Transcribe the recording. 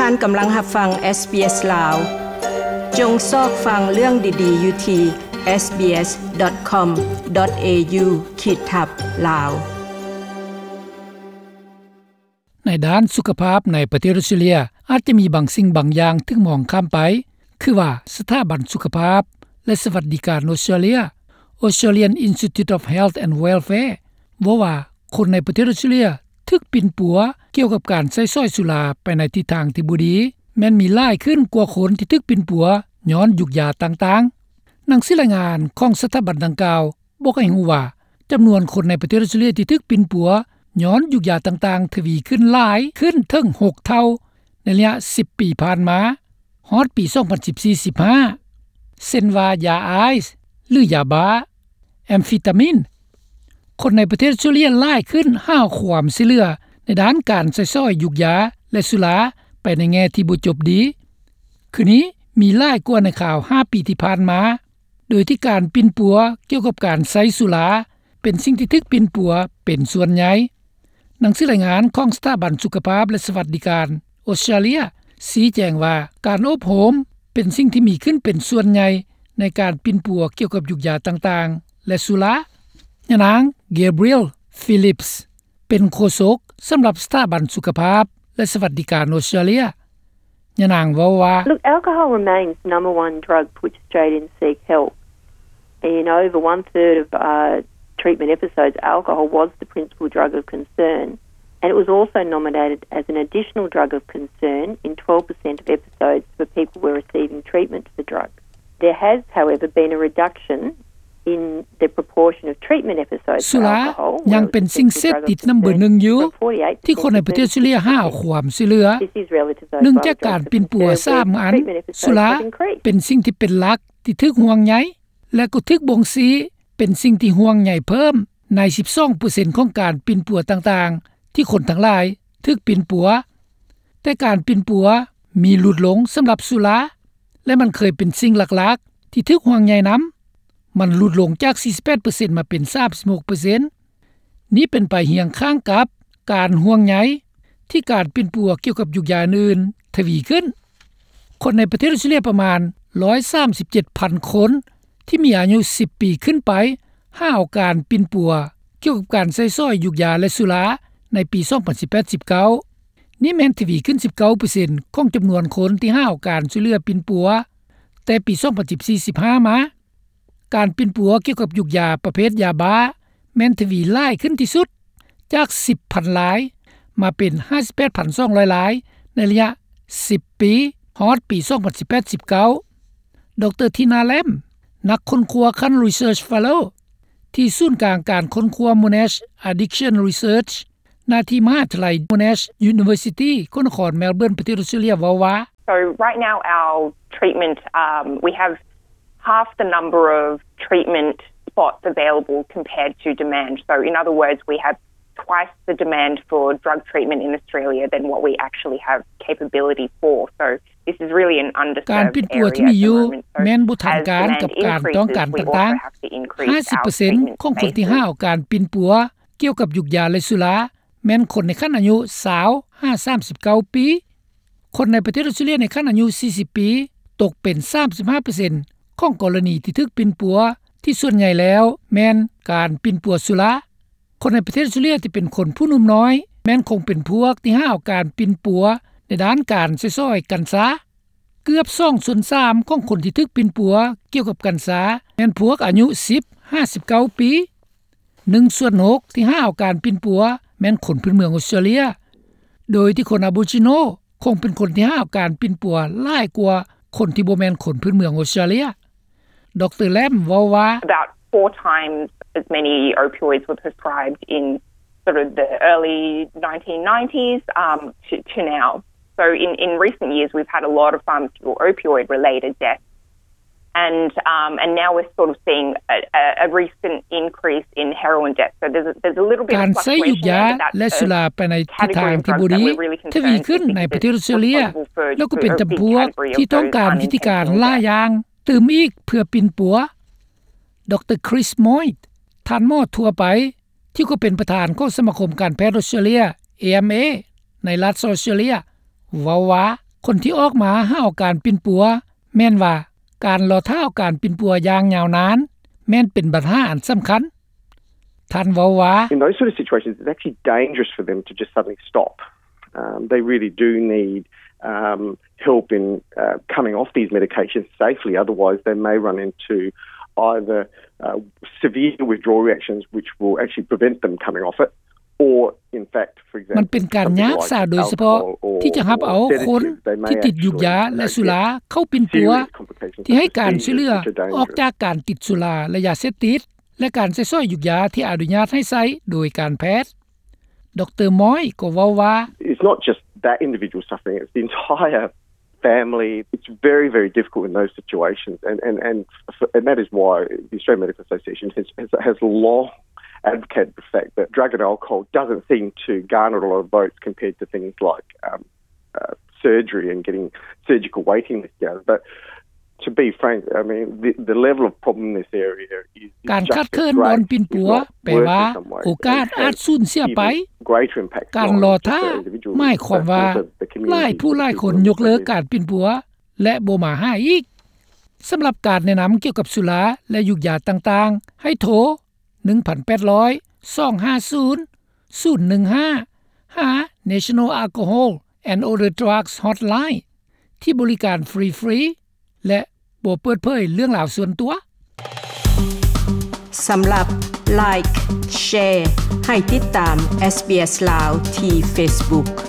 ທ່ານກຳລັງຮັບຟັງ SBS ລາວ. ຈົ່ງຊອກຟັງເລື່ອງດີໆຢູ່ທີ່ SBS.com.au ຂີດທັບ ລາວ. ໃນດ້ານສຸຂະພາບໃນປະເທດອອສເຕຣເລຍ ອາດຈະມີບາງສິ່ງບາງຢ່າງຖືກມອງຂ້າມໄປ, ຄືວ່າສະຖາບັນສຸຂະພາບ ແລະ ສະຫວັດດີການອອສເຕຣເລຍ Australian Institute of Health and Welfare ເວົ້າວ່າ ຄົນໃນປະເທດອອສເຕຣເລຍຖືກປິ່ນປົວກ່ຽວກັບການໃຊ້ສອຍສຸລາໄປໃນທິດທາງທີ່ບໍ່ດີ ແມ່ນມີຫຼາຍຂຶ້ນກວ່າຄົນທີ່ຖືກປິ່ນປົວຍ້ອນຢູກຢາຕ່າງໆ. ໜັງສືລາຍງານຂອງສະຖາບັນດັ່ງກ່າວ ບອກໃຫ້ຮູ້ວ່າ ຈຳນວນຄົນໃນປະເທດອອສເຕຣເລຍທີ່ຖືກປິ່ນປົວຍ້ອນຢູກຢາຕ່າງໆ ທະວີຂຶ້ນຫຼາຍຂຶ້ນເຖິງຫົກເທົ່າໃນໄລຍະສິບປີຜ່ານມາ ຮອດປີສອງພັນສິບສີ່ ສິບຫ້າ ເຊັ່ນວ່າ ຢາໄອສ໌ ຫຼື ຢາບ້າ, ແອມຟີຕາມິນ. ຄົນໃນປະເທດອອສເຕຣເລຍຫຼາຍຂຶ້ນຫາຄວາມຊ່ວຍເຫຼືອໃນດ້ານການໃຊ້ສອຍຢູກຢາ ແລະ ສຸລາໄປໃນແງ່ທີ່ບໍ່ຈົບດີ ຄືນີ້ມີຫຼາຍກວ່າໃນຄາວຫ້າປີທີ່ຜ່ານມາ. ໂດຍທີ່ການປິ່ນປົວກ່ຽວກັບການໃຊ້ສຸລາ ເປັນສິ່ງທີ່ຖືກປິ່ນປົວເປັນສ່ວນໃຫຍ່. ໜັງສືລາຍງານຂອງສະຖາບັນສຸຂະພາບ ແລະ ສະຫວັດດີການອອສເຕຣເລຍຊີ້ແຈງວ່າ ການໂອບໂຮມເປັນສິ່ງທີ່ມີຂຶ້ນເປັນສ່ວນໃຫຍ່ໃນການປິ່ນປົວກ່ຽວກັບຢູກຢາຕ່າງໆ ແລະ ສຸລາ. ຍານາງ Gabrielle Phillips ເປັນໂຄສົກສຳລັບສະຖາບັນສຸຂະພາບ ແລະ ສະຫວັດດີການອອສເຕຣເລຍ. ຍານາງເວົ້າວ່າ Look, alcohol remains number one drug for which Australians seek help. In over one third of, uh, treatment episodes, alcohol was the principal drug of concern, and it was also nominated as an additional drug of concern in twelve percent of episodes for people who were receiving treatment for the drug. There has, however, been a reduction in the proportion of treatment episodes ສຸລາຍັງເປັນສິ່ງເສບຕິດນຳເບີໜຶ່ງຢູ່ ທີ່ຄົນໃນປະເທດອອສເຕຣເລຍຫາຄວາມຊ່ວຍເຫຼືອ. ເນື່ອງຈາກການປິ່ນປົວສາມອັນ, ສຸລາເປັນສິ່ງທີ່ເປັນຫຼັກທີ່ຖືກຫ່ວງໃຍ ແລະ ກໍຖືກບົ່ງຊີ້ເປັນສິ່ງທີ່ຫ່ວງໃຍເພີ່ມໃນສິບສອງເປີເຊັນຂອງການປິ່ນປົວຕ່າງໆ ທີ່ຄົນທັງຫຼາຍຖືກປິ່ນປົວ. ແຕ່ການປິ່ນປົວມີຫຼຸດລົງສຳລັບສຸລາ ແລະ ມັນເຄີຍເປັນສິ່ງຫຼັກໆທີ່ຖືກຫ່ວງໃຍນຳ. ມັນຫຼຸດລົງຈາກສີ່ສິບແປດເປີເຊັນມາເປັນສາມສິບຫົກເປີເຊັນ. ນີ້ເປັນໄປຮຽງຂ້າງກັບການຫ່ວງໃຍທີ່ການປິ່ນປົວກ່ຽວກັບຢູກຢາອື່ນໆທະວີຂຶ້ນ. ຄົນໃນປະເທດອອສເຕຣເລຍປະມານຮ້ອຍສາມສິບເຈັດພັນຄົນ ທີ່ມີອາຍຸສິບປີຂຶ້ນໄປ ຫາເອົາການປິ່ນປົວກ່ຽວກັບການໃຊ້ສອຍຢູກຢາ ແລະ ສຸລາໃນປີສອງພັນສິບແປດ ສິບເກົ້າ. ນີ້ແມ່ນທະວີຂຶ້ນສິບເກົ້າເປີເຊັນຂອງຈຳນວນຄົນທີ່ຫາເອົາການຊ່ວຍເຫຼືອປິ່ນປົວ ແຕ່ປີສອງພັນສິບສີ່ ສິບຫ້າມາ. ການປິ່ນປົວກ່ຽວກັບຢູກຢາປະເພດຢາບ້າ ແມ່ນທະວີຫຼາຍຂຶ້ນທີ່ສຸດ ຈາກສິບພັນລາຍ ມາເປັນຫ້າສິບແປດພັນສອງຮ້ອຍລາຍ ໃນໄລຍະສິບປີ ຮອດປີສອງພັນສິບແປດ ສິບເກົ້າ. ດຣ ທີນາ ແລມ ນັກຄົ້ນຄວ້າຂັ້ນ Research Fellow ທີ່ສູນກາງການຄົ້ນຄວ້າ Monash Addiction Research ໜ້າທີ່ມະຫາວິທະຍາໄລ Monash University ແຂວງນະຄອນ Melbourne ປະເທດອອສເຕຣເລຍ ເວົ້າວ່າ So right now our treatment, um, we have half the number of treatment spots available compared to demand. So in other words, we have twice the demand for drug treatment in Australia than what we actually have capability for. So this is really an underserved area at the moment. ການປິ່ນປົວທີ່ມີຢູ່ແມ່ນບໍ່ທັນການກັບການຕ້ອງການຕ່າງໆ. ຫ້າສິບເປີເຊັນຂອງຄົນທີ່ຫາເອົາການປິ່ນປົວກ່ຽວກັບຢູກຢາ ແລະ ສຸລາ ແມ່ນຄົນໃນຂັ້ນອາຍຸຊາວຫາສາມສິບເກົ້າປີ. ຄົນໃນປະເທດອອສເຕຣເລຍໃນຂັ້ນອາຍຸສີ່ສິບປີ ຕົກເປັນສາມສິບຫ້າເປີເຊັນຂອງກໍລະນີທີ່ຖືກປິ່ນປົວ ທີ່ສ່ວນໃຫຍ່ແລ້ວແມ່ນການປິ່ນປົວສຸລາ. ຄົນໃນປະເທດອອສເຕຣເລຍທີ່ເປັນຄົນຜູ້ໜຸ່ມນ້ອຍ ແມ່ນຄົງເປັນພວກທີ່ຫາເອົາການປິ່ນປົວໃນດ້ານການໃຊ້ສອຍກັນຊາ. ເກືອບສອງສ່ວນສາມຂອງຄົນທີ່ຖືກປິ່ນປົວກ່ຽວກັບກັນຊາ ແມ່ນພວກອາຍຸສິບຫາສິບເກົ້າປີ. ໜຶ່ງສ່ວນຫົກທີ່ຫາເອົາການປິ່ນປົວແມ່ນຄົນພື້ນເມືອງອອສເຕຣເລຍ, ໂດຍທີ່ຄົນອາໂບຣິຈິໂນຄົງເປັນຄົນທີ່ຫາເອົາການປິ່ນປົວຫຼາຍກວ່າຄົນທີ່ບໍ່ແມ່ນຄົນພື້ນເມືອງອອສເຕຣເລຍ. ດຣ ແລມເວົ້າວ່າ About four times as many opioids were prescribed in sort of the early nineteen nineties, um, to, to now. So in, in recent years, we've had a lot of pharmaceutical opioid related deaths. And, um, and now we're sort of seeing a, a, a recent increase in heroin deaths. So there's a, there's a little bit of fluctuation there, but that's a category of drugs that we're really concerned with because it's responsible for a big category of those unintentional deaths. ການໃຊ້ຢູກຢາ ແລະ ສຸລາໄປໃນທິດທາງທີ່ບໍ່ດີ ທະວີຂຶ້ນໃນປະເທດອອສເຕຣເລຍ ແລ້ວກໍເປັນຈຳພວກທີ່ຕ້ອງການວິທີການຫຼາຍຢ່າງ ຕື່ມອີກເພື່ອປິ່ນປົວ. ດຣ Chris Moyte ທ່ານໝໍທົ່ວໄປ ທີ່ກໍເປັນປະທານຂອງສະມາຄົມການແພດອອສເຕຣເລຍ ເອເອັມເອ ໃນລັດອອສເຕຣເລຍ ເວົ້າວ່າ ຄົນທີ່ອອກມາຫາເອົາການປິ່ນປົວ ແມ່ນວ່າການລໍຖ້າເອົາການປິ່ນປົວຢ່າງຍາວນານ ແມ່ນເປັນບັນຫາອັນສຳຄັນ. ທ່ານເວົ້າວ່າ In those sort of situations, it's actually dangerous for them to just suddenly stop. Um, they really do need, um, help in, uh, coming off these medications safely. Otherwise, they may run into either, uh, severe withdrawal reactions, which will actually prevent them coming off it, or, in fact, for example, ມັນເປັນການຍາກສາໂດຍສະເພາະທີ່ຈະຮັບເອົາຄົນທີ່ຕິດຢູກຢາ ແລະ ສຸລາເຂົ້າປິ່ນປົວ ທີ່ໃຫ້ການຊ່ວຍເຫຼືອອອກຈາກການຕິດສຸລາ ແລະ ຢາເສບຕິດ ແລະ ການໃຊ້ສອຍຢູກຢາທີ່ອະນຸຍາດໃຫ້ໃຊ້ໂດຍການແພດ. ດຣ. ມອຍ ກໍເວົ້າວ່າ It's not just that individual suffering, it's the entire family. It's very, very difficult in those situations, and, and, and, and that is why the Australian Medical Association has, has, has long advocated the fact that drug and alcohol doesn't seem to garner a lot of votes compared to things like, um, uh, surgery and getting surgical waiting lists down. But to be frank, I mean, the, the level of problem in this area is, is ການຂາດເຂີນບ່ອນປິ່ນປົວ ແປວ່າໂອກາດອາດສູນເສຍໄປ. ການລໍຖ້າໝາຍຄວາມວ່າຫຼາຍຜູ້ຫຼາຍຄົນຍົກເລີກການປິ່ນປົວ ແລະ ບໍ່ມາຫາອີກ. ສຳລັບການແນະນຳກ່ຽວກັບສຸລາ ແລະ ຢູກຢາຕ່າງໆ ໃຫ້ໂທ ໜຶ່ງພັນແປດຮ້ອຍ ສອງຫ້າສູນ ສູນໜຶ່ງຫ້າ ຫາ National Alcohol and Other Drugs Hotline ທີ່ບໍລິການຟຣີໆ ແລະ ບໍ່ເປີດເຜີຍເລື່ອງລາວສ່ວນຕົວ. ສຳລັບ Like Share ໃຫ້ຕິດຕາມ SBS ລາວ ທີ່ Facebook.